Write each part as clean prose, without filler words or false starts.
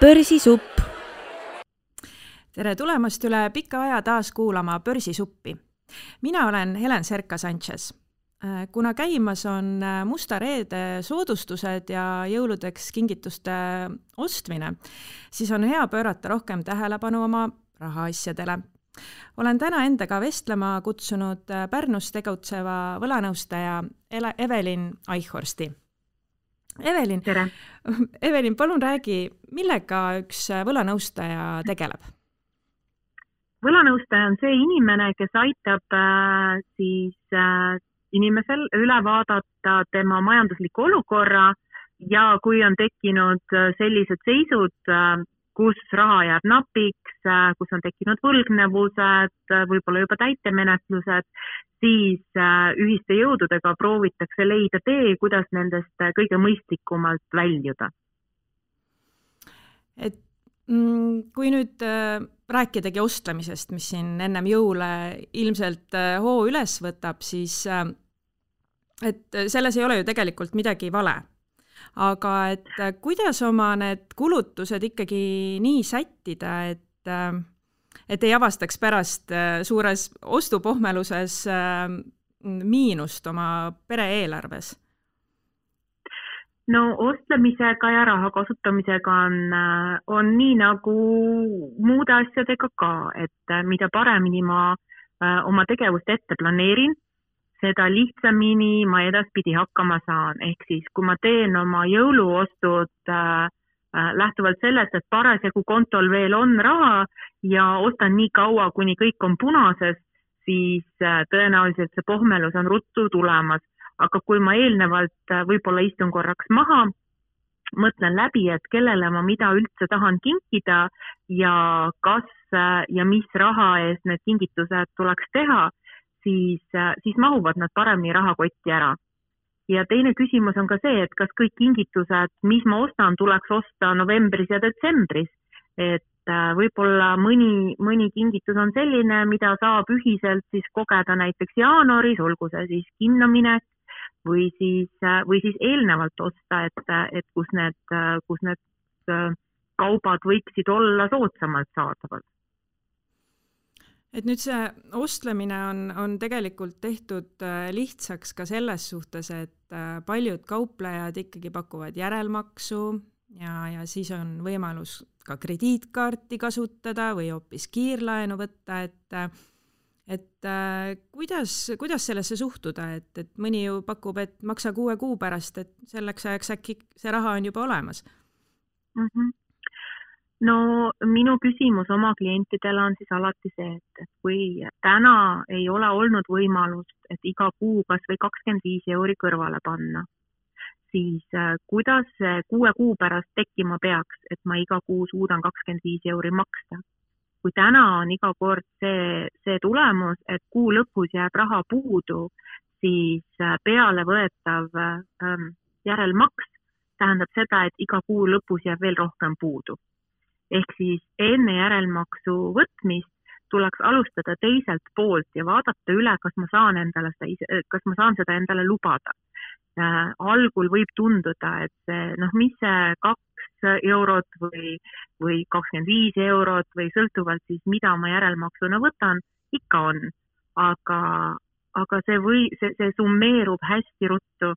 Börsisupp. Tere tulemast üle pika aja taas kuulama Börsisuppi. Mina olen Helen Serka-Sanchez. Kuna käimas on Musta Reede soodustused ja jõuludeks kingituste ostmine, siis on hea pöörata rohkem tähelepanu oma rahaasjadele. Olen täna endaga vestlema kutsunud Pärnus tegutseva võlanõustaja Evelin Eichhorsti. Evelin, palun räägi, millega üks võlanõustaja tegeleb? Võlanõustaja on see inimene, kes aitab inimesel üle vaadata tema majandusliku olukorra ja kui on tekkinud sellised seisud, kus raha jääb napiks, kus on tekkinud võlgnevused, võib-olla juba täitemenetlused, siis ühiste jõududega proovitakse leida tee, kuidas nendest kõige mõistlikumalt väljuda. Kui nüüd rääkidagi ostlemisest, mis siin ennem jõule ilmselt hoo üles võtab, siis et selles ei ole ju tegelikult midagi vale. Aga et kuidas oma need kulutused ikkagi nii sättida, et ei avastaks pärast suures ostupohmeluses miinust oma pere eelarves? No ostlemisega ja raha kasutamisega on nii nagu muude asjadega ka, et mida paremini ma oma tegevust ette planeerin, seda lihtsamini ma edaspidi hakkama saan. Ehk siis, kui ma teen oma jõuluostud lähtuvalt sellest, et parasjagu kontol veel on raha ja ostan nii kaua, kuni kõik on punases, siis tõenäoliselt see pohmelus on ruttu tulemas. Aga kui ma eelnevalt võib-olla istun korraks maha, mõtlen läbi, et kellele ma mida üldse tahan kinkida ja kas ja mis raha eest need kingitused tuleks teha, siis mahuvad nad paremini rahakotti ära. Ja teine küsimus on ka see, et kas kõik kingitused, mis ma ostan, tuleks osta novembris ja detsembris. Et võib-olla mõni kingitus on selline, mida saab ühiselt siis kogeda näiteks jaanuaris, olgu see siis kinnaminek või siis eelnevalt osta, et kus need kaubad võiksid olla soodsamalt saadavad. Et nüüd see ostlemine on tegelikult tehtud lihtsaks ka selles suhtes, et paljud kauplejad ikkagi pakuvad järelmaksu ja siis on võimalus ka krediitkaarti kasutada või hoopis kiirlaenu võtta, et kuidas sellesse suhtuda, et mõni ju pakub, et maksa 6 kuu pärast, et selleks ajaks äkki see raha on juba olemas? No minu küsimus oma klientidele on siis alati see, et kui täna ei ole olnud võimalust, et iga kuu kas või 25 € kõrvale panna, siis kuidas 6 kuu pärast tekkima peaks, et ma iga kuu suudan 25 € maksta? Kui täna on iga kord see tulemus, et kuu lõpus jääb raha puudu, siis peale võetav järelmaks tähendab seda, et iga kuu lõpus jääb veel rohkem puudu. Ehk siis enne järelmaksu võtmist tuleks alustada teiselt poolt ja vaadata üle, kas ma saan seda endale lubada. Algul võib tunduda, et mis see 2 eurot või 25 eurot või sõltuvalt siis, mida ma järelmaksuna võtan, ikka on. Aga see summeerub hästi ruttu.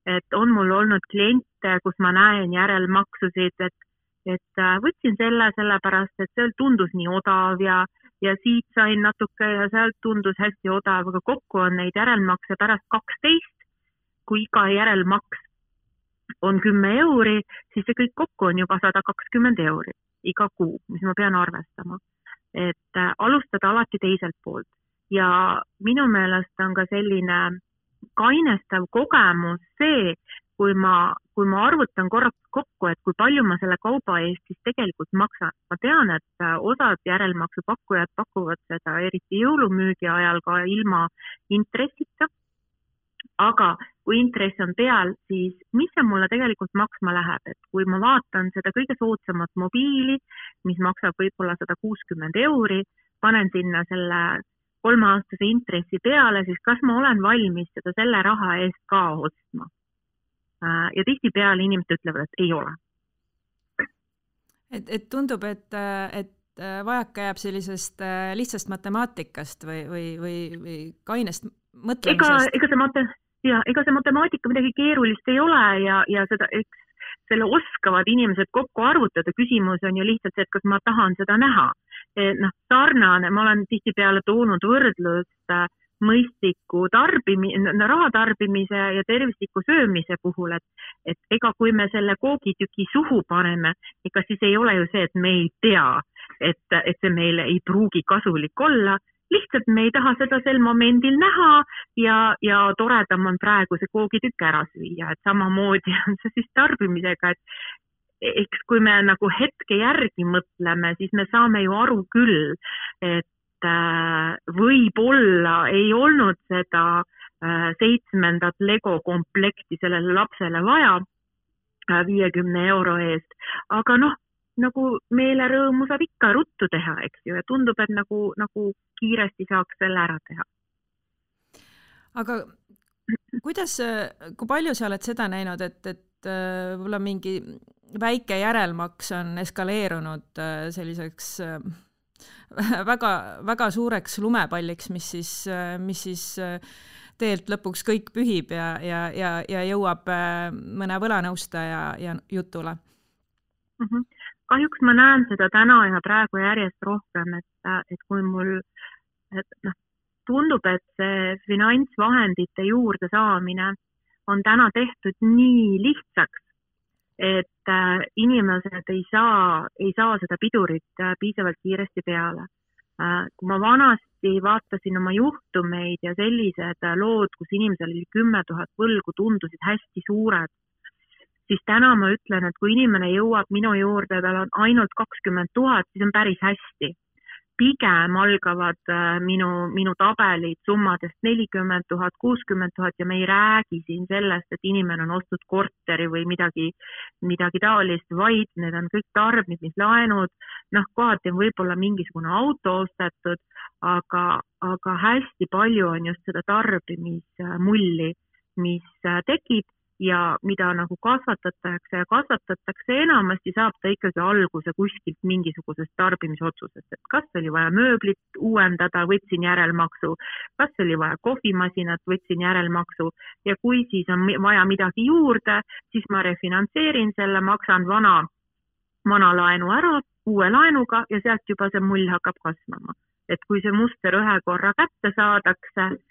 Et on mul olnud kliente, kus ma näen järelmaksusid, et võtsin sellepärast, et seal tundus nii odav ja siit sain natuke ja sealt tundus hästi odav, aga kokku on neid järelmakse pärast 12, kui iga järelmaks on 10 €, siis see kõik kokku on juba 120 € iga kuu, mis ma pean arvestama. Et alustada alati teiselt poolt. Ja minu meelest on ka selline kainestav kogemus see, kui ma arvutan korraks kokku, et kui palju ma selle kauba eest siis tegelikult maksan. Ma tean, et osad järelmaksupakkujad pakuvad seda eriti jõulumüügi ajal ka ilma intressita. Aga kui intress on peal, siis mis see mulle tegelikult maksma läheb? Et kui ma vaatan seda kõige soodsamat mobiili, mis maksab võib-olla 160 €, panen sinna selle 3-aastase intressi peale, siis kas ma olen valmis seda selle raha eest ka ostma? Ja tihtipeale inimesed ütlevad, et ei ole. Et tundub, et vajaka jääb sellisest lihtsast matemaatikast või kainest mõtlemisest. Ega see matemaatika midagi keerulist ei ole ja seda, selle oskavad inimesed kokku arvutada. Küsimus on ju lihtsalt see, et kas ma tahan seda näha. Sarnane, ma olen tihtipeale toonud võrdlust mõistliku raha tarbimise ja tervisliku söömise puhul, et ega kui me selle koogitüki suhu paneme, ega siis ei ole ju see, et me ei tea, et see meile ei pruugi kasulik olla, lihtsalt me ei taha seda sel momendil näha ja toredam on praegu see koogitükk ära süüa, et samamoodi on see siis tarbimisega, et eks kui me nagu hetke järgi mõtleme, siis me saame ju aru küll, et võib-olla ei olnud seda 7. Lego komplekti sellele lapsele vaja 50 euro eest, aga nagu meelerõõmu saab ikka ruttu teha, eks ju, ja tundub, et nagu kiiresti saaks selle ära teha. Aga kui palju sa oled seda näinud, et võib-olla mingi väike järelmaks on eskaleerunud selliseks väga, väga suureks lumepalliks, mis siis teelt lõpuks kõik pühib ja jõuab mõne võlanõustaja jutule? Kahjuks ma näen seda täna ja praegu järjest rohkem, et kui mul tundub, et see finantsvahendite juurde saamine on täna tehtud nii lihtsaks, et inimesed ei saa seda pidurit piisavalt kiiresti peale. Kui ma vanasti vaatasin oma juhtumeid ja sellised lood, kus inimesel oli 10 000 võlgu, tundusid hästi suured, siis täna ma ütlen, et kui inimene jõuab minu juurde, tal on ainult 20 000, siis on päris hästi. Pigem algavad minu tabelid summadest 40 000, 60 000 ja me ei räägi siin sellest, et inimene on ostnud korteri või midagi taolist, vaid need on kõik tarbimislaenud, kohati on võib-olla mingisugune auto ostetud, aga hästi palju on just seda tarbimismulli, mis tekib ja mida nagu kasvatatakse enamasti saab ta ikkagi alguse kuskilt mingisugusest tarbimisotsusest, et kas oli vaja mööblit uuendada, võtsin järelmaksu, kas oli vaja kohvimasinat, võtsin järelmaksu ja kui siis on vaja midagi juurde, siis ma refinantseerin selle, maksan vana laenu ära uue laenuga ja sealt juba see mull hakkab kasvama. Et kui see muster ühe korra kätte saadakse,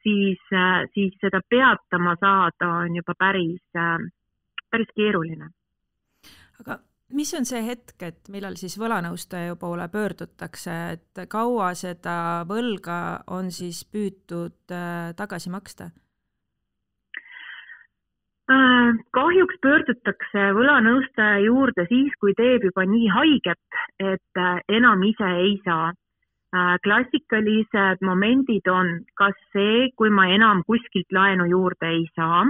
siis seda peatama saada on juba päris keeruline. Aga mis on see hetk, et millal siis võlanõustaja poole pöördutakse, et kaua seda võlga on siis püütud tagasi maksta? Kahjuks pöördutakse võlanõustaja juurde siis, kui teeb juba nii haiget, et enam ise ei saa. Klassikalised momendid on kas see, kui ma enam kuskilt laenu juurde ei saa,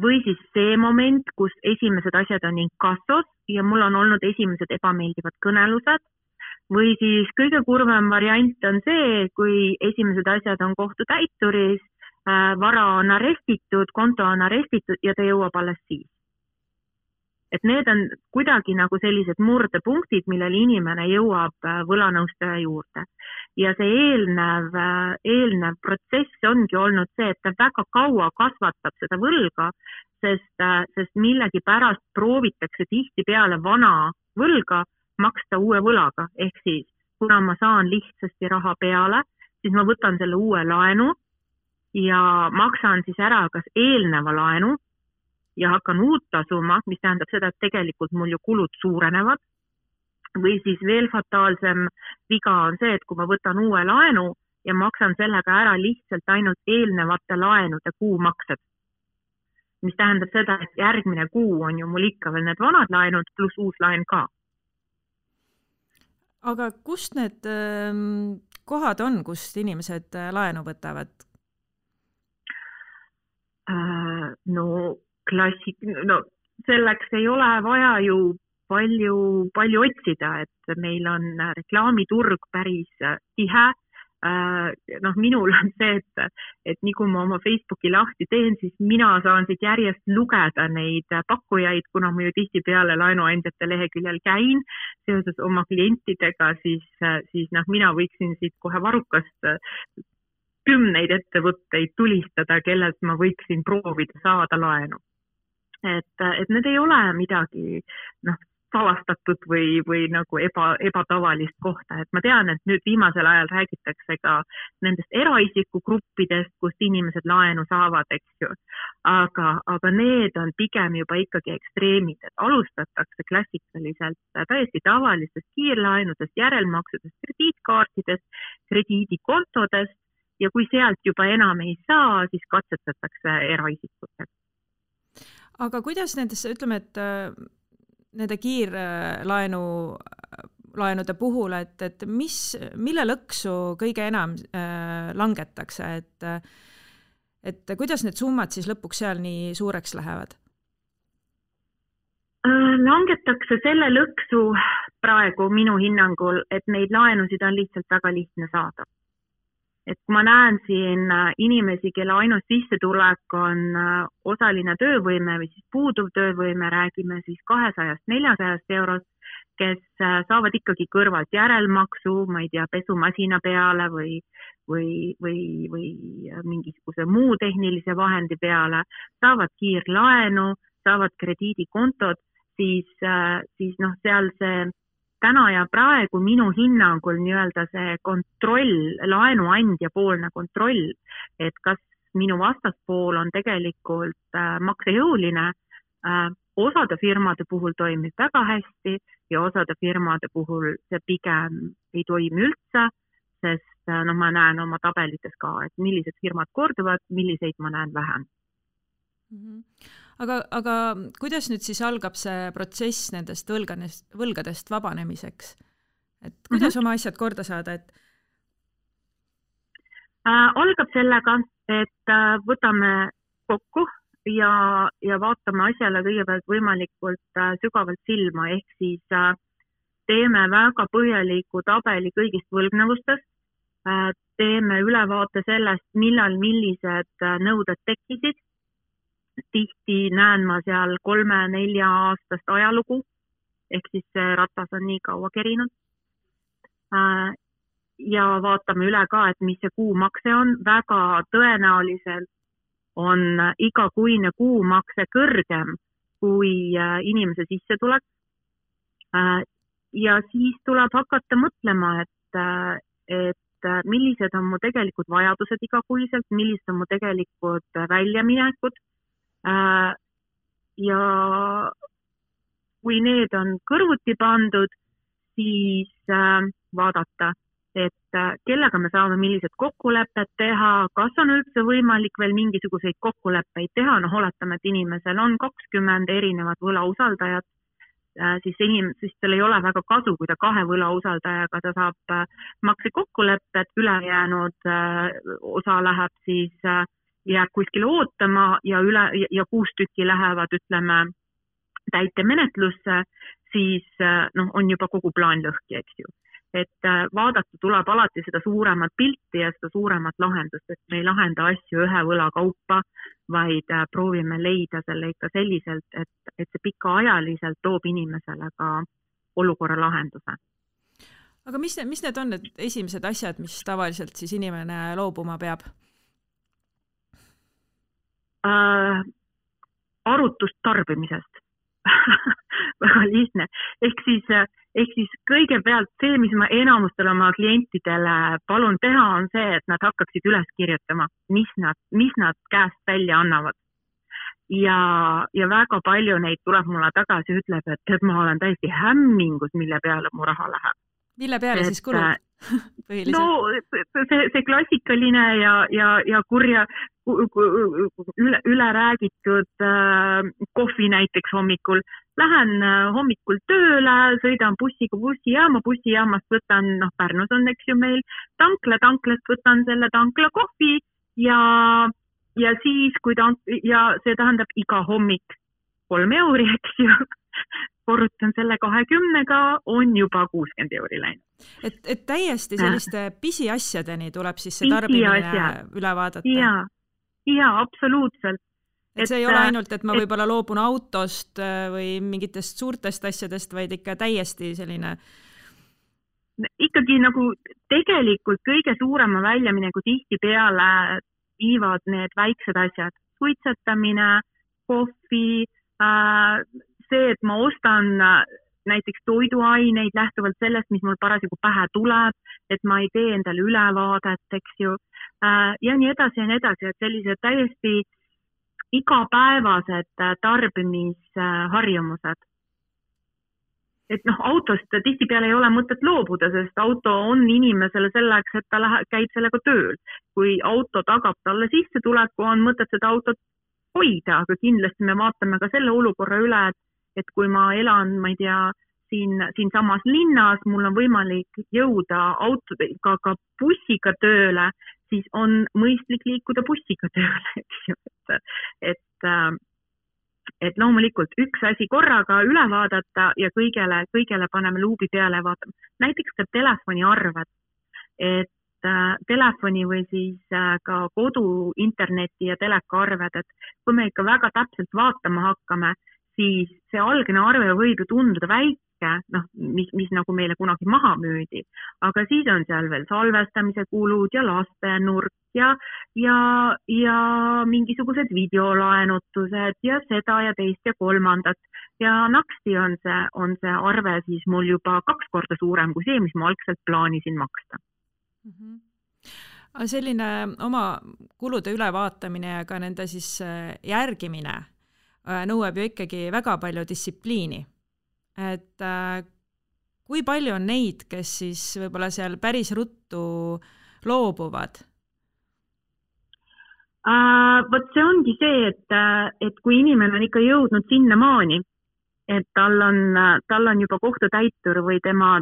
või siis see moment, kus esimesed asjad on inkassos ja mul on olnud esimesed ebameeldivad kõnelused, või siis kõige kurvem variant on see, kui esimesed asjad on kohtutäituris, vara on arestitud, konto on arestitud ja ta jõuab alles siis. Et need on kuidagi nagu sellised murdepunktid, millel inimene jõuab võlanõustaja juurde. Ja see eelnev protsess ongi olnud see, et ta väga kaua kasvatab seda võlga, sest millegi pärast proovitakse tihtipeale vana võlga maksta uue võlaga. Ehk siis, kuna ma saan lihtsasti raha peale, siis ma võtan selle uue laenu ja maksan siis ära kas eelneva laenu, ja hakkan uut tasuma, mis tähendab seda, et tegelikult mul ju kulud suurenevad. Või siis veel fataalsem viga on see, et kui ma võtan uue laenu ja maksan sellega ära lihtsalt ainult eelnevate laenude kuumaksed. Mis tähendab seda, et järgmine kuu on ju mul ikka veel need vanad laenud pluss uus laen ka. Aga kust need kohad on, kust inimesed laenu võtavad? Selleks ei ole vaja ju palju otsida, et meil on reklaamiturg päris tihe, minul on see, et nii kui ma oma Facebooki lahti teen, siis mina saan siit järjest lugeda neid pakkujaid, kuna ma ju tihtipeale laenuandjate leheküljel käin seoses oma klientidega, siis mina võiksin siit kohe varrukast 10 ettevõtteid tulistada, kellelt ma võiksin proovida saada laenu. Et need ei ole midagi, salastatud või nagu ebatavalist kohta, et ma tean, et nüüd viimasel ajal räägitakse ka nendest eraisiku gruppidest, kust inimesed laenu saavad, eks ju. Aga need on pigem juba ikkagi ekstreemid, et alustatakse klassikaliselt täiesti tavalistest kiirlaenudest, järelmaksudest, krediitkaartidest, krediidikontodest ja kui sealt juba enam ei saa, siis katsetatakse eraisikutega. Aga kuidas nendes, ütleme, et nende kiirlaenude puhul, et mille lõksu kõige enam langetakse, et kuidas need summad siis lõpuks seal nii suureks lähevad? Langetakse selle lõksu praegu minu hinnangul, et neid laenusid on lihtsalt väga lihtne saada. Et kui ma näen siin inimesi, kelle ainus sissetulek on osaline töövõime või siis puuduv töövõime, räägime siis 200-400 eurost, kes saavad ikkagi kõrvalt järelmaksu, ma ei tea, pesumasina peale või mingisuguse muu tehnilise vahendi peale, saavad kiirlaenu, saavad krediidikontod, siis seal see täna ja praegu minu hinnangul nii-öelda see kontroll, laenuandja poolne kontroll, et kas minu vastaspool on tegelikult maksejõuline, osade firmade puhul toimib väga hästi ja osade firmade puhul see pigem ei toimi üldse, sest ma näen oma tabelites ka, et millised firmad korduvad, milliseid ma näen vähem. Aga kuidas nüüd siis algab see protsess nendest võlgadest vabanemiseks? Et kuidas oma asjad korda saada? Algab sellega, et võtame kokku ja vaatame asjale kõigepealt võimalikult sügavalt silma, ehk siis teeme väga põhjaliku tabeli kõigist võlgnevustest, teeme ülevaate sellest, millal millised nõuded tekkisid. Tihti näen ma seal 3-4 aastast ajalugu, ehk siis see ratas on nii kaua kerinud. Ja vaatame üle ka, et mis see kuumakse on. Väga tõenäoliselt on igakuine kuumakse kõrgem kui inimese sissetulek. Ja siis tuleb hakata mõtlema, et millised on mu tegelikult vajadused igakuiselt, millised on mu tegelikult väljaminekud. Ja kui need on kõrvuti pandud, siis vaadata, et kellega me saame millised kokkulepped teha, kas on üldse võimalik veel mingisuguseid kokkuleppeid teha, oletame, et inimesel on 20 erinevat võlausaldajat, siis tal ei ole väga kasu, kui ta 2 võlausaldajaga ta saab maksekokkulepped, ülejäänud osa läheb siis jääb kuskile ootama ja 6 tükki lähevad, ütleme, täitemenetlusse, siis on juba kogu plaan lõhki, eks ju. Et vaadata tuleb alati seda suuremat pilti ja seda suuremat lahendust, et me ei lahenda asju ühe võla kaupa, vaid proovime leida selle ikka selliselt, et see pikaajaliselt toob inimesele ka olukorra lahenduse. Aga mis need on need esimesed asjad, mis tavaliselt siis inimene loobuma peab? Arutust tarbimisest. Väga lihtne. Ehk siis kõigepealt see, mis ma enamustele oma klientidele palun teha, on see, et nad hakkaksid üles kirjutama, mis nad käest välja annavad. Ja väga palju neid tuleb mulle tagasi, ütleb, et ma olen täiesti hämmingus, mille peale mu raha läheb. Mille peale siis kulud? See klassikaline ja kurja üle räägitud kohvi näiteks hommikul. Lähen hommikul tööle, sõidan bussiga bussijaama, bussijaamast võtan, Pärnus on, eks ju meil, tanklast võtan selle tankla kohvi ja siis, ja see tähendab iga hommik 3 euri, eks ju. korrutan selle 20-ga, on juba 60 euri läinud. Et täiesti selliste pisiasjadeni tuleb siis see tarbimine üle vaadata? Jaa, absoluutselt. Et see ei ole ainult, et ma võib-olla loobun autost või mingitest suurtest asjadest, vaid ikka täiesti selline... Ikkagi nagu tegelikult kõige suurema väljamineku tihtipeale viivad need väiksed asjad. Suitsetamine, kohvi, see, et ma ostan näiteks toiduaineid lähtuvalt sellest, mis mul parasjagu pähe tuleb, et ma ei tee endale ülevaadet, eks ju, ja nii edasi, et sellised täiesti igapäevased tarbimisharjumused. Et autost tihtipeale ei ole mõtet loobuda, sest auto on inimesele selleks, et ta käib sellega tööl. Kui auto tagab talle sissetuleku, on mõtet seda autot hoida, aga kindlasti me vaatame ka selle olukorra üle, et kui ma elan, ma ei tea, siin samas linnas, mul on võimalik jõuda ka bussiga tööle, siis on mõistlik liikuda bussiga tööle, eks ju. Et loomulikult üks asi korraga üle vaadata ja kõigele paneme luubi peale ja vaatame. Näiteks ka telefoniarved, et telefoni või siis ka kodu, interneti ja telekaarved, et kui me ikka väga täpselt vaatama hakkame, siis see algne arve võib ju tunduda väike, mis nagu meile kunagi maha müüdi, aga siis on seal veel salvestamise kulud ja lastenurk ja mingisugused videolaenutused ja seda ja teist ja kolmandat ja naksti on see arve siis mul juba 2 korda suurem kui see, mis ma algselt plaanisin maksta. Selline oma kulude ülevaatamine ja ka nende siis järgimine nõuab ju ikkagi väga palju distsipliini. Et kui palju on neid, kes siis võib-olla seal päris ruttu loobuvad? Vot see ongi see, et kui inimene on ikka jõudnud sinna maani, et tal on juba kohtutäitur või tema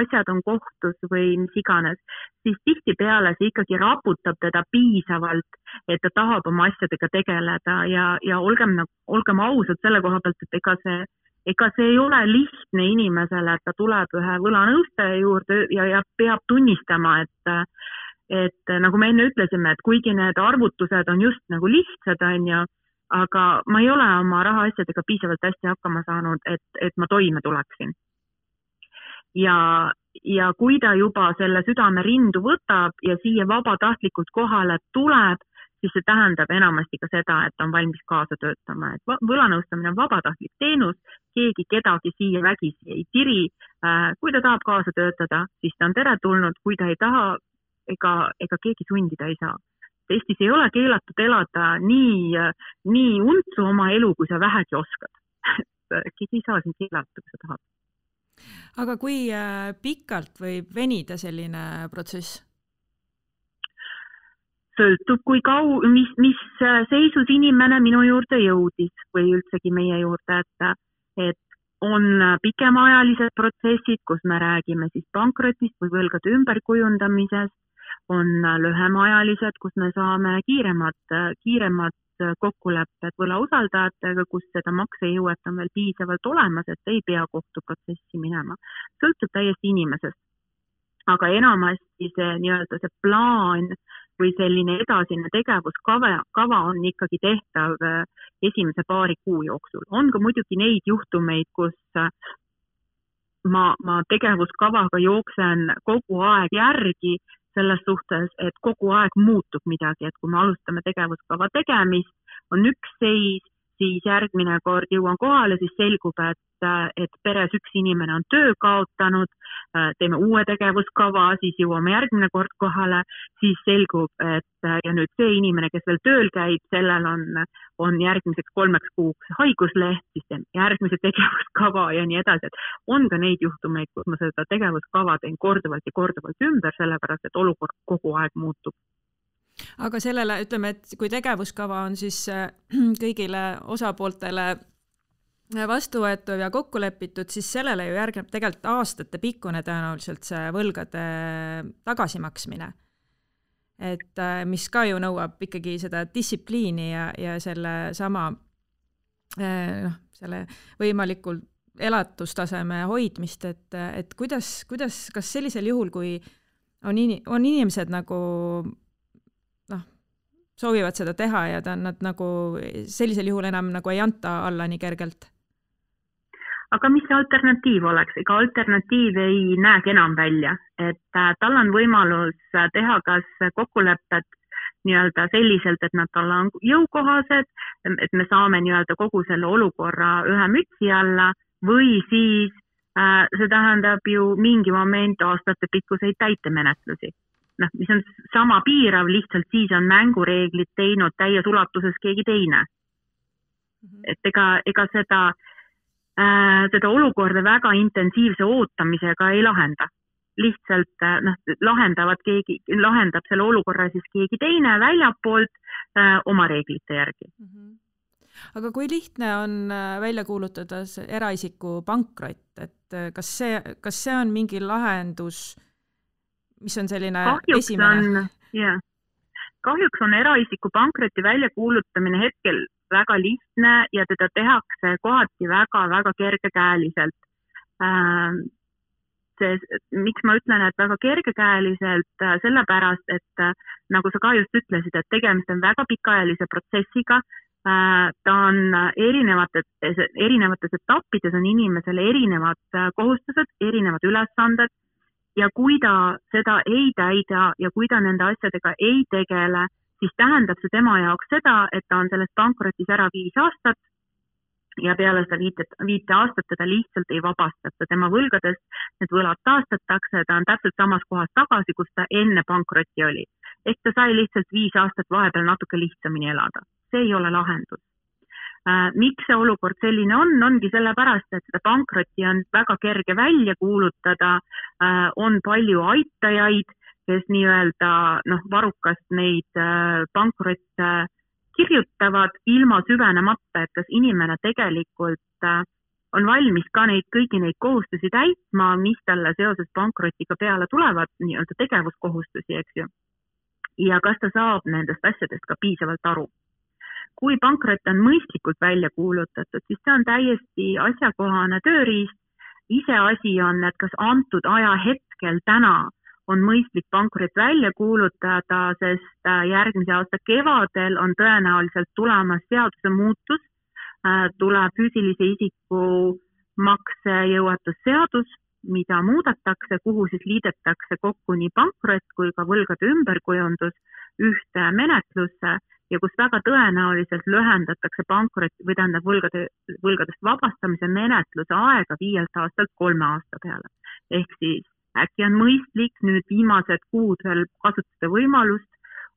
asjad on kohtus või mis iganes, siis tihtipeale see ikkagi raputab teda piisavalt, et ta tahab oma asjadega tegeleda ja olgem ausad selle koha pealt, et ega see ei ole lihtne inimesele, et ta tuleb ühe võlanõustaja juurde ja peab tunnistama, et nagu me enne ütlesime, et kuigi need arvutused on just nagu lihtsad, on ju, aga ma ei ole oma rahaasjadega piisavalt hästi hakkama saanud, et ma toime tuleksin. Ja kui ta juba selle südame rindu võtab ja siia vabatahtlikult kohale tuleb, siis see tähendab enamasti ka seda, et on valmis kaasa töötama. Et võlanõustamine on vabatahtlik teenus, keegi kedagi siia vägisi ei tiri. Kui ta tahab kaasa töötada, siis ta on teretulnud, kui ta ei taha, ega keegi sundida ei saa. Eestis ei ole keelatud elada nii untsu oma elu, kui sa vähegi oskad. Keegi ei saa siin keelata, kui sa tahad. Aga kui pikalt võib venida selline protsess? Sõltub, mis seisus inimene minu juurde jõudis või üldsegi meie juurde, et on pikemaajalised protsessid, kus me räägime siis pankrotist või võlgade ümberkujundamisest, on lühemaajalised, kus me saame kiiremad kokkulepped võlausaldajatega, kus seda maksejõuet on veel piisavalt olemas, et ei pea kohtuprotsessi minema. Sõltub täiesti inimesest. Aga enamasti see plaan või selline edasine tegevuskava on ikkagi tehtav esimese paari kuu jooksul. On ka muidugi neid juhtumeid, kus ma tegevuskavaga jooksen kogu aeg järgi selles suhtes, et kogu aeg muutub midagi, et kui me alustame tegevuskava tegemist, on üks seis, siis järgmine kord jõuan kohale, siis selgub, et peres üks inimene on töö kaotanud, teeme uue tegevuskava, siis jõuame järgmine kord kohale, siis selgub, et ja nüüd see inimene, kes veel tööl käib, sellel on järgmiseks 3 kuuks haigusleht, siis teeme järgmise tegevuskava ja nii edasi. Et on ka neid juhtumeid, kus ma seda tegevuskava teen korduvalt ja korduvalt ümber, sellepärast, et olukord kogu aeg muutub. Aga sellele, ütleme, et kui tegevuskava on siis kõigile osapooltele vastuvõetud ja kokku lepitud, siis sellele ju järgneb tegelikult aastate pikkune tõenäoliselt see võlgade tagasimaksmine. Et mis ka ju nõuab ikkagi seda distsipliini ja selle sama selle võimalikult elatustaseme hoidmist, et kuidas, kas sellisel juhul, kui on inimesed nagu soovivad seda teha ja nad nagu sellisel juhul enam nagu ei anta alla nii kergelt? Aga mis see alternatiiv oleks? Ega alternatiiv ei näegi enam välja, et tal on võimalus teha kas kokkulepped nii-öelda selliselt, et nad talle on jõukohased, et me saame nii-öelda kogu selle olukorra ühe mütsi alla või siis see tähendab ju mingi moment aastate pikkuseid täitemenetlusi. Mis on sama piirav, lihtsalt siis on mängureeglid teinud täies ulatuses keegi teine. Et ega seda olukorda väga intensiivse ootamisega ei lahenda. Lihtsalt lahendab selle olukorra siis keegi teine väljapoolt oma reeglite järgi. Aga kui lihtne on välja kuulutada eraisiku pankrot, et kas see on mingi lahendus, mis on selline esimene? Kahjuks on eraisiku pankroti välja kuulutamine hetkel väga lihtne ja teda tehakse kohati väga-väga kergekäeliselt. Miks ma ütlen, et väga kergekäeliselt, sellepärast, et nagu sa ka just ütlesid, et tegemist on väga pikaajalise protsessiga, ta on erinevates etappides on inimesele erinevad kohustused, erinevad ülesanded ja kui ta seda ei täida ja kui ta nende asjadega ei tegele, siis tähendab see tema jaoks seda, et ta on sellest pankrotis ära 5 aastat ja peale seda 5 aastat teda lihtsalt ei vabastata. Tema võlgadest need võlad taastatakse, ta on täpselt samas kohas tagasi, kus ta enne pankrotti oli. Ehk ta sai lihtsalt 5 aastat vahepeal natuke lihtsamini elada. See ei ole lahendus. Miks see olukord selline ongi sellepärast, et seda pankrotti on väga kerge välja kuulutada, on palju aitajaid, kes nii-öelda varukast neid pankrotte kirjutavad ilma süvenemata, et kas inimene tegelikult on valmis ka kõigi neid kohustusi täitma, mis talle seoses pankrotiga peale tulevad, nii-öelda tegevuskohustusi, eks ju. Ja kas ta saab nendest asjadest ka piisavalt aru. Kui pankrot on mõistlikult välja kuulutatud, siis see on täiesti asjakohane tööriist. Iseasi on, et kas antud aja hetkel täna on mõistlik pankrot välja kuulutada, sest järgmise aasta kevadel on tõenäoliselt tulemas seaduse muutus, tuleb füüsilise isiku maksejõuetusseadus, mida muudetakse, kuhu siis liidetakse kokku nii pankrot kui ka võlgade ümberkujundus ühte menetlusse ja kus väga tõenäoliselt lühendatakse pankroti või tähendab võlgadest vabastamise menetluse aega 5 aastalt 3 aasta peale. Ehk siis äkki on mõistlik nüüd viimased kuud veel kasutada võimalust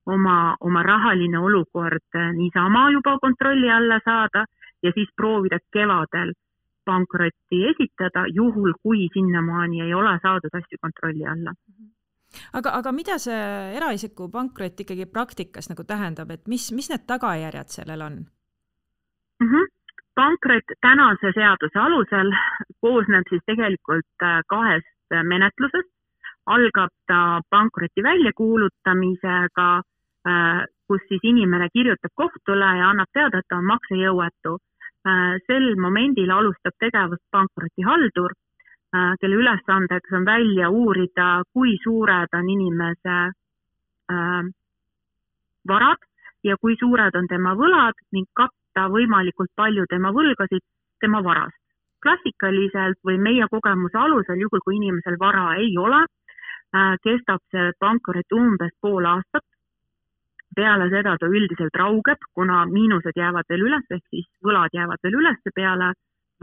oma rahaline olukord niisama juba kontrolli alla saada ja siis proovida kevadel pankrotti esitada, juhul kui sinnamaani ei ole saadud asju kontrolli alla. Aga mida see eraisiku pankrot ikkagi praktikas nagu tähendab, et mis need tagajärjed sellel on? Pankrot tänase seaduse alusel koosneb siis tegelikult 2 menetlusest. Algab ta pankroti väljakuulutamisega, kus siis inimene kirjutab kohtule ja annab teada, et ta on maksejõuetu. Sel momendil alustab tegevust pankrotihaldur, kelle ülesandeks on välja uurida, kui suured on inimese varad ja kui suured on tema võlad ning katta võimalikult palju tema võlgasid tema varast. Klassikaliselt või meie kogemuse alusel, juhul kui inimesel vara ei ole, kestab see pankrot umbes pool aastat. Peale seda ta üldiselt raugeb, kuna miinused jäävad veel üles, ehk siis võlad jäävad veel üles peale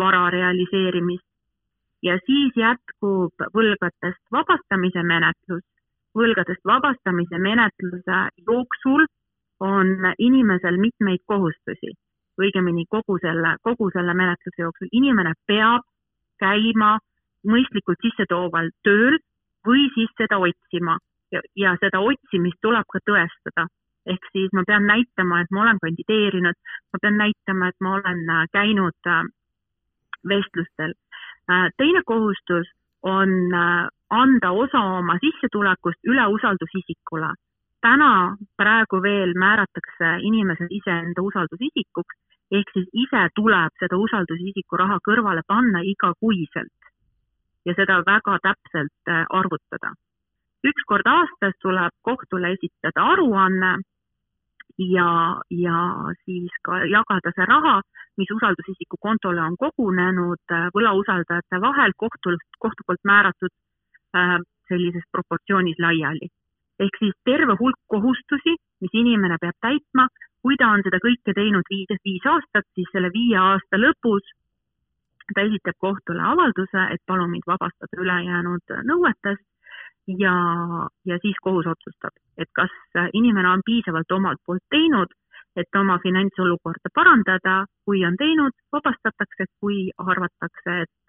vara realiseerimist. Ja siis jätkub võlgadest vabastamise menetlus. Võlgadest vabastamise menetluse jooksul on inimesel mitmeid kohustusi. Õigemini kogu selle menetluse jooksul. Inimene peab käima mõistlikult sissetooval tööl või siis seda otsima. Ja seda otsimist tuleb ka tõestada. Ehk siis ma pean näitama, et ma olen kandideerinud, ma pean näitama, et ma olen käinud vestlustel. Teine kohustus on anda osa oma sissetulekust üle usaldusisikule. Praegu veel määratakse inimesed iseenda usaldusisikuks ehk siis ise tuleb seda usaldusisiku raha kõrvale panna igakuiselt ja seda väga täpselt arvutada. Üks kord aastas tuleb kohtule esitada aruanne ja siis ka jagada see raha, mis usaldusisiku kontole on kogunenud võlausaldajate vahel kohtu poolt määratud sellises proportsioonis laiali. Ehk siis terve hulk kohustusi, mis inimene peab täitma, kui ta on seda kõike teinud 5 aastat, siis selle 5 aasta lõpus ta esitab kohtule avalduse, et palun mind vabastada ülejäänud nõuetest ja siis kohus otsustab, et kas inimene on piisavalt omalt poolt teinud, et oma finantsolukorda parandada, kui on teinud, vabastatakse, kui arvatakse, et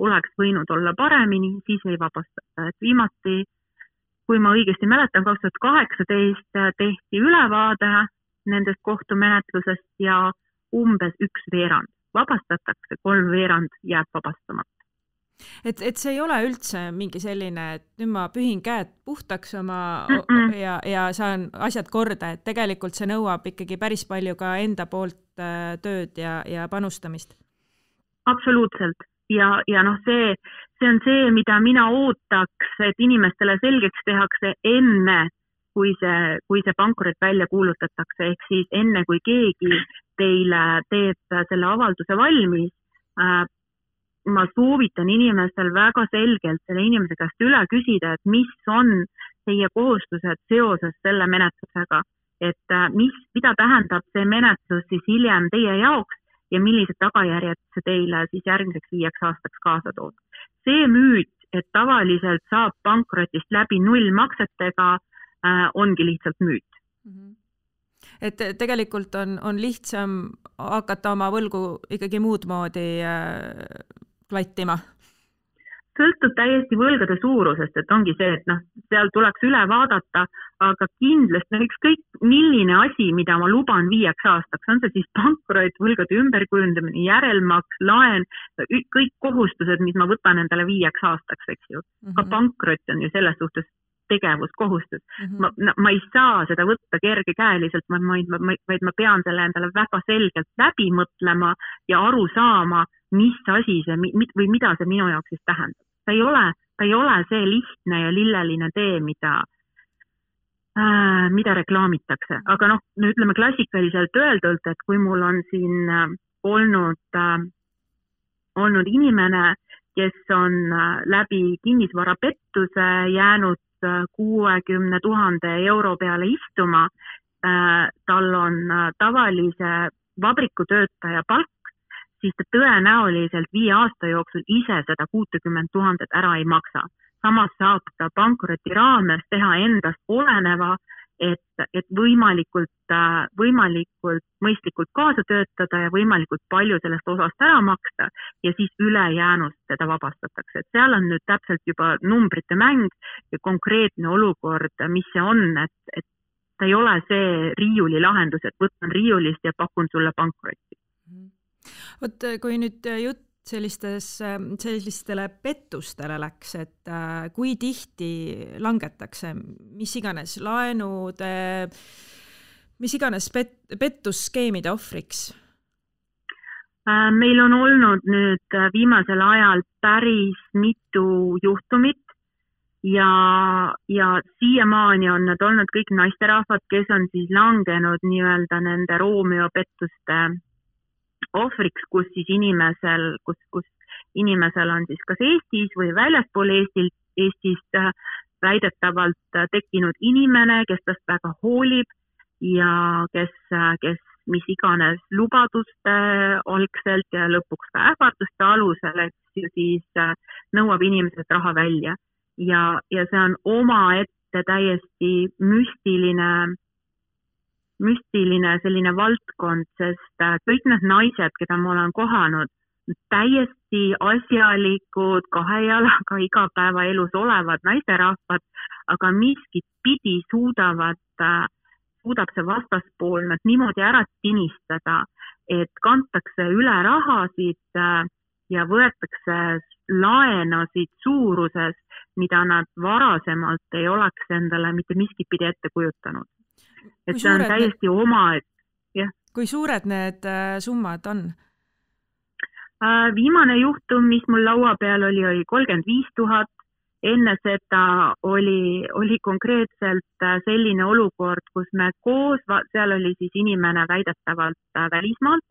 oleks võinud olla paremini, siis ei vabastata. Et viimati, kui ma õigesti mäletan, 2018 tehti ülevaade nendest kohtumenetlusest ja umbes 1/2 vabastatakse, 3/4 jääb vabastamata. Et see ei ole üldse mingi selline, et nüüd ma pühin käed puhtaks ja saan asjad korda, et tegelikult see nõuab ikkagi päris palju ka enda poolt tööd ja panustamist. Absoluutselt. Ja noh, see on see, mida mina ootaks, et inimestele selgeks tehakse enne, kui see pankrot välja kuulutatakse, ehk siis enne, kui keegi teile teeb selle avalduse valmis, ma soovitan inimestel väga selgelt selle inimese käest üle küsida, et mis on teie kohustused seoses selle menetlusega, et mida tähendab see menetlus siis hiljem teie jaoks ja millised tagajärjed see teile siis järgmiseks 5 aastaks kaasa toob. See müüt, et tavaliselt saab pankrotist läbi nullmaksetega, ongi lihtsalt müüt. Et tegelikult on lihtsam hakata oma võlgu ikkagi muud moodi klattima? Sõltub täiesti võlgade suurusest, et ongi see, et seal tuleks üle vaadata, aga kindlasti ükskõik milline asi, mida ma luban 5 aastaks, on see siis pankrot, võlgade ümberkujundamine, järelmaks, laen, kõik kohustused, mis ma võtan endale 5 aastaks, eks ju. Ka pankrot on ju selles suhtes tegevuskohustus. Ma ei saa seda võtta kergekäeliselt, vaid ma pean selle endale väga selgelt läbi mõtlema ja aru saama, mis asi see või mida see minu jaoks siis tähendab. Ta ei ole see lihtne ja lilleline tee, mida reklaamitakse. Aga ütleme klassikaliselt öeldult, et kui mul on siin olnud inimene, kes on läbi kinnisvarapettuse jäänud 60 000 euro peale istuma, tal on tavalise vabrikutöötaja palk, siis ta tõenäoliselt 5 aasta jooksul ise seda 60 000 ära ei maksa. Samas saab ta pankroti raames teha endast oleneva, et võimalikult mõistlikult kaasa töötada ja võimalikult palju sellest osast ära maksta ja siis ülejäänust teda vabastatakse. Et seal on nüüd täpselt juba numbrite mäng ja konkreetne olukord, mis see on, et ta ei ole see riiuli lahendus, et võtan riiulist ja pakun sulle pankrotti. Vot kui nüüd jutt sellistele pettustele läks, et kui tihti langetakse mis iganes laenude, mis iganes pettusskeemide ohvriks? Meil on olnud nüüd viimasel ajal päris mitu juhtumit ja siiamaani on need olnud kõik naisterahvad, kes on siis langenud nii-öelda nende Romeo pettuste ohvriks, kus inimesel on siis kas Eestis või väljaspool Eestist väidetavalt tekkinud inimene, kes tast väga hoolib ja kes mis iganes lubaduste algselt ja lõpuks ka ähvarduste alusel, et siis nõuab inimesed raha välja. Ja see on omaette täiesti müstiline selline valdkond, sest kõik need naised, keda ma olen kohanud, täiesti asjalikud, 2 jalaga igapäevaelus olevad naisterahvad, aga miskit pidi suudab see vastaspool nad niimoodi ära tinistada, et kantakse üle rahasid ja võetakse laenasid suuruses, mida nad varasemalt ei oleks endale mitte miskit pidi ette kujutanud. Et see on täiesti kui suured need summad on? Viimane juhtum, mis mul laua peal oli 35 000. Enne seda oli konkreetselt selline olukord, kus me koos, seal oli siis inimene väidetavalt välismaalt,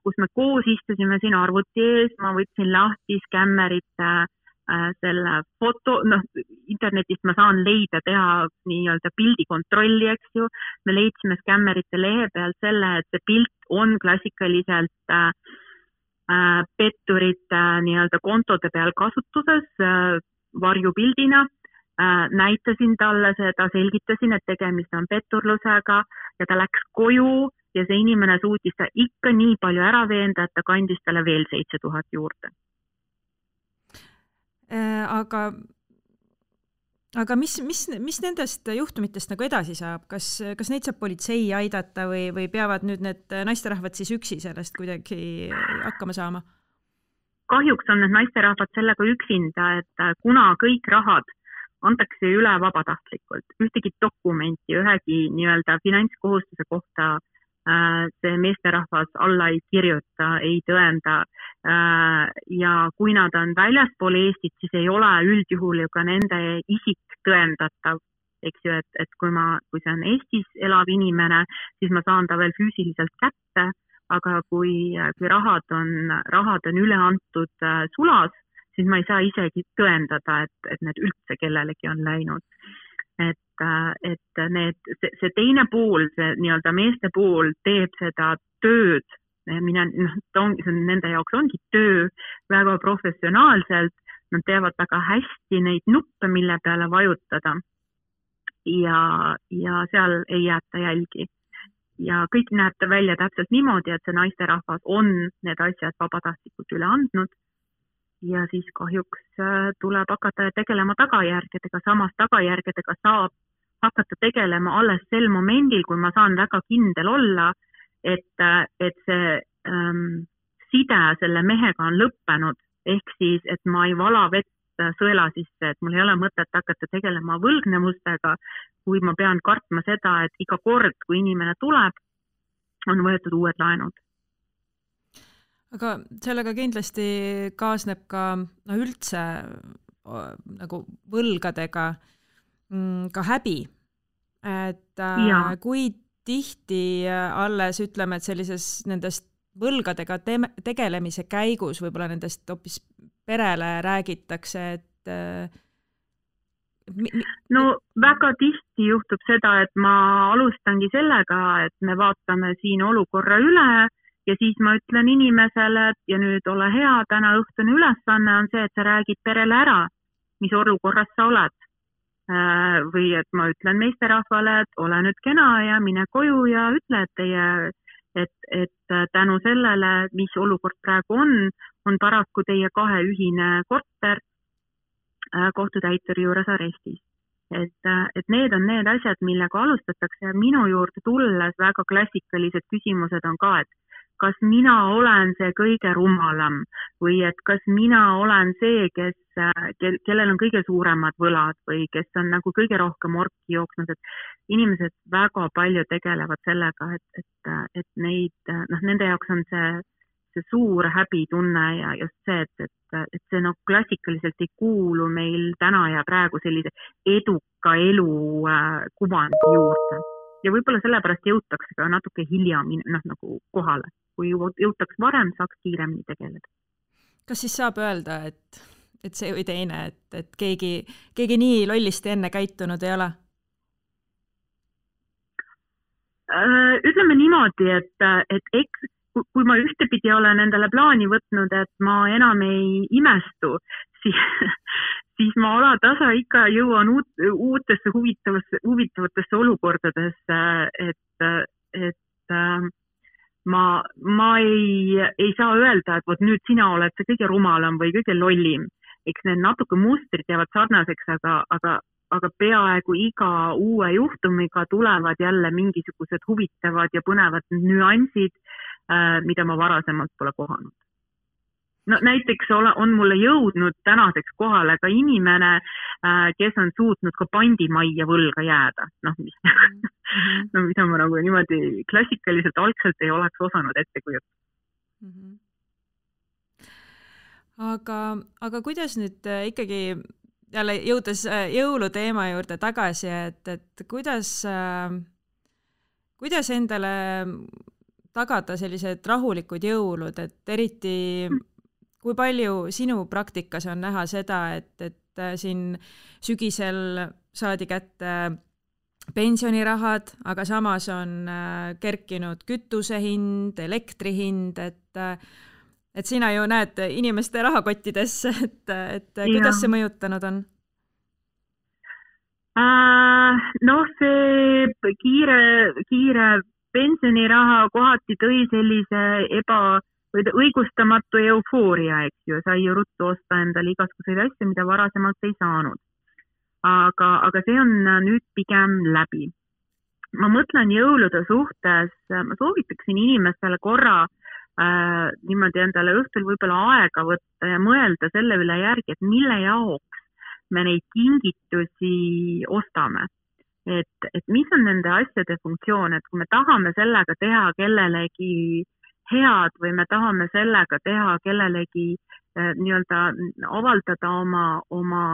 kus me koos istusime siin arvuti ees, ma võtsin lahti skämmerite selle foto, internetist ma saan leida, teha nii-öelda pildikontrolli, eks ju. Me leidsime skämmerite lehe peal selle, et see pilt on klassikaliselt petturite nii-öelda kontode peal kasutuses varjupildina. Näitasin talle seda, selgitasin, et tegemist on petturlusega ja ta läks koju ja see inimene suutis ta ikka nii palju ära veenda, et ta kandis talle veel 7000 juurde. Aga mis nendest juhtumitest nagu edasi saab? Kas neid saab politsei aidata või peavad nüüd need naisterahvad siis üksi sellest kuidagi hakkama saama? Kahjuks on need naisterahvad sellega üksinda, et kuna kõik rahad antakse üle vabatahtlikult, ühtegi dokumenti, ühegi nii-öelda finantskohustuse kohta see meesterahvas alla ei kirjuta, ei tõenda ja kui nad on väljaspool Eestit, siis ei ole üldjuhul ju ka nende isik tõendatav, eks ju, et kui see on Eestis elav inimene, siis ma saan ta veel füüsiliselt kätte, aga kui rahad on üle antud sulas, siis ma ei saa isegi tõendada, et need üldse kellelegi on läinud. Et see teine pool, see nii-öelda meeste pool teeb seda tööd, nende jaoks ongi töö väga professionaalselt, nad teevad väga hästi neid nuppe, mille peale vajutada ja seal ei jäeta jälgi. Ja kõik näeb ta välja täpselt niimoodi, et see naisterahvas on need asjad vabatahtlikult üle andnud ja siis kahjuks tuleb hakata tegelema tagajärgedega, samas tagajärgedega saab hakata tegelema alles sel momendil, kui ma saan väga kindel olla, et see side selle mehega on lõppenud, ehk siis, et ma ei vala vett sõela sisse, et mul ei ole mõtet hakata tegelema võlgnevustega, kui ma pean kartma seda, et iga kord, kui inimene tuleb, on võetud uued laenud. Aga sellega kindlasti kaasneb ka üldse nagu võlgadega ka häbi, et kui tihti alles ütleme, et sellises nendest võlgadega tegelemise käigus võib-olla nendest hoopis perele räägitakse, et no väga tihti juhtub seda, et ma alustangi sellega, et me vaatame siin olukorra üle ja siis ma ütlen inimesele, et ja nüüd ole hea, täna õhtune ülesanne on see, et sa räägid perele ära, mis olukorras sa oled. Või et ma ütlen meesterahvale, et ole nüüd kena ja mine koju ja ütle, et tänu sellele, mis olukord praegu on paraku teie kahe ühine korter kohtutäituri juures arestis. Et need on need asjad, millega alustatakse ja minu juurde tulles väga klassikalised küsimused on ka, et kas mina olen see kõige rumalam või et kas mina olen see, kellel on kõige suuremad võlad või kes on nagu kõige rohkem orki jooksnud, et inimesed väga palju tegelevad sellega, et nende jaoks on see suur häbitunne ja just see, et see klassikaliselt ei kuulu meil täna ja praegu sellise eduka elu kuvandi juurde. Ja võib-olla sellepärast jõutakse ka natuke hilja nagu kohale. Kui jõutaks varem, saaks kiiremini tegeleda. Kas siis saab öelda, et see või teine, et keegi nii lollisti enne käitunud ei ole? Ütleme niimoodi, et kui ma ühtepidi olen endale plaani võtnud, et ma enam ei imestu, siis ma alatasa ikka jõuan uutesse huvitavatesse olukordadesse, et ma ei saa öelda, et nüüd sina oled see kõige rumalam või kõige lollim. Eks need natuke mustrid jäävad sarnaseks, aga peaaegu iga uue juhtumiga tulevad jälle mingisugused huvitavad ja põnevad nüansid, mida ma varasemalt pole kohanud. no näiteks on mulle jõudnud tänaseks kohale ka inimene, kes on suutnud ka pandimajja võlga jääda. Mida ma nagu niimoodi klassikaliselt algselt ei oleks osanud ette kujutada. Aga kuidas nüüd ikkagi jälle jõudes jõuluteema juurde tagasi, et kuidas endale tagada sellised rahulikud jõulud, et eriti kui palju sinu praktikas on näha seda, et siin sügisel saadi kätte pensionirahad, aga samas on kerkinud kütuse hind, elektri hind, et sina ju näed inimeste rahakottidesse, et kuidas see mõjutanud on? See kiire pensioniraha kohati tõi sellise õigustamatu eufooria, eks ju, sai ju ruttu osta endale igasuguseid asju, mida varasemalt ei saanud. Aga see on nüüd pigem läbi. Ma mõtlen jõulude suhtes, ma soovitaksin inimestele korra niimoodi endale õhtul võib-olla aega võtta ja mõelda selle üle järgi, et mille jaoks me neid kingitusi ostame. Et mis on nende asjade funktsioon, et kui me tahame sellega teha kellelegi head või me tahame sellega teha kellelegi nii-öelda avaldada oma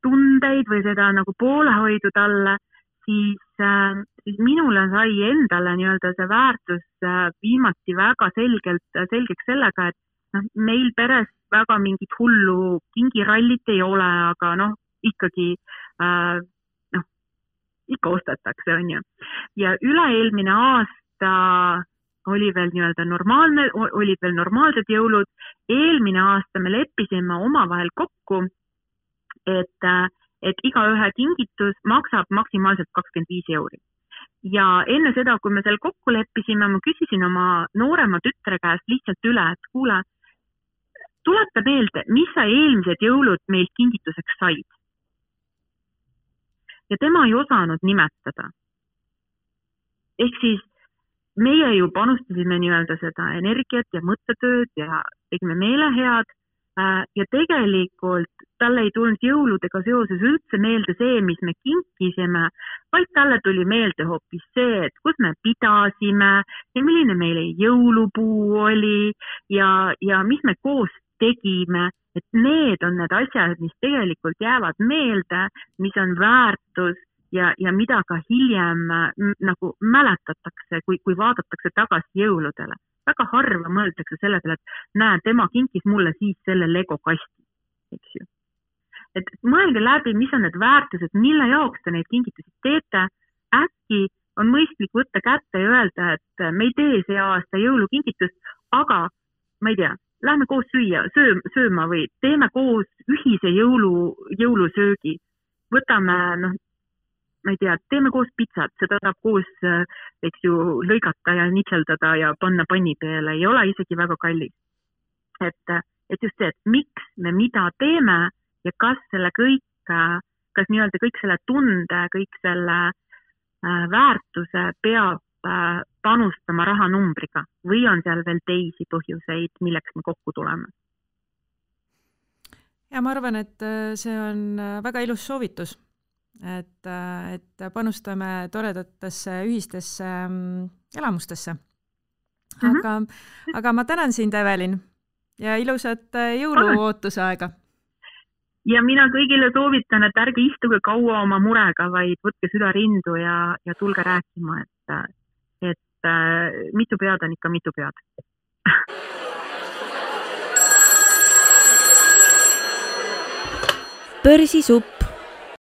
tundeid või seda nagu poolehoidu talle, siis minule sai endale nii-öelda see väärtus viimati väga selgeks sellega, et meil peres väga mingit hullu kingirallit ei ole, aga ikkagi ikka ostetakse, on ju. Ja üle-eelmine aasta oli veel nii-öelda olid veel normaalsed jõulud. Eelmine aasta me leppisime omavahel kokku, et igaühe kingitus maksab maksimaalselt 25 €. Ja enne seda, kui me seal kokku leppisime, ma küsisin oma noorema tütre käest lihtsalt üle, et kuule, tuleta meelde, mis sa eelmised jõulud meilt kingituseks said. Ja tema ei osanud nimetada. Ehk siis meie ju panustasime nii-öelda seda energiat ja mõttetööd ja tegime meelehead ja tegelikult talle ei tulnud jõuludega seoses üldse meelde see, mis me kinkisime, vaid talle tuli meelde hoopis see, et kus me pidasime ja milline meile jõulupuu oli ja mis me koos tegime, et need on need asjad, mis tegelikult jäävad meelde, mis on väärtus ja mida ka hiljem nagu mäletatakse, kui vaadatakse tagasi jõuludele. Väga harva mõeldakse selle peale, et näe, tema kinkis mulle siis selle Lego kasti, eks ju. Et mõelge läbi, mis on need väärtused, mille jaoks te neid kingitusi teete. Äkki on mõistlik võtta kätte ja öelda, et me ei tee see aasta jõulukingitust, aga ma ei tea, lähme koos sööma või teeme koos ühise jõulusöögi. Võtame, ma ei tea, teeme koos pitsat, seda saab koos, eks ju, lõigata ja nitseldada ja panna panni peale, ei ole isegi väga kallis. Et just see, et miks me mida teeme ja kas nii-öelda kõik selle tunde, kõik selle väärtuse peab panustama rahanumbriga või on seal veel teisi põhjuseid, milleks me kokku tuleme? Ja ma arvan, et see on väga ilus soovitus. Et panustame toredatesse ühistesse elamustesse. Aga ma tänan sind, Evelin, ja ilusat jõuluootuse aega. Ja mina kõigile soovitan, et ärge istuge kaua oma murega, vaid võtke süda rindu ja tulge rääkima, et mitu pead on ikka mitu pead. Börsisupp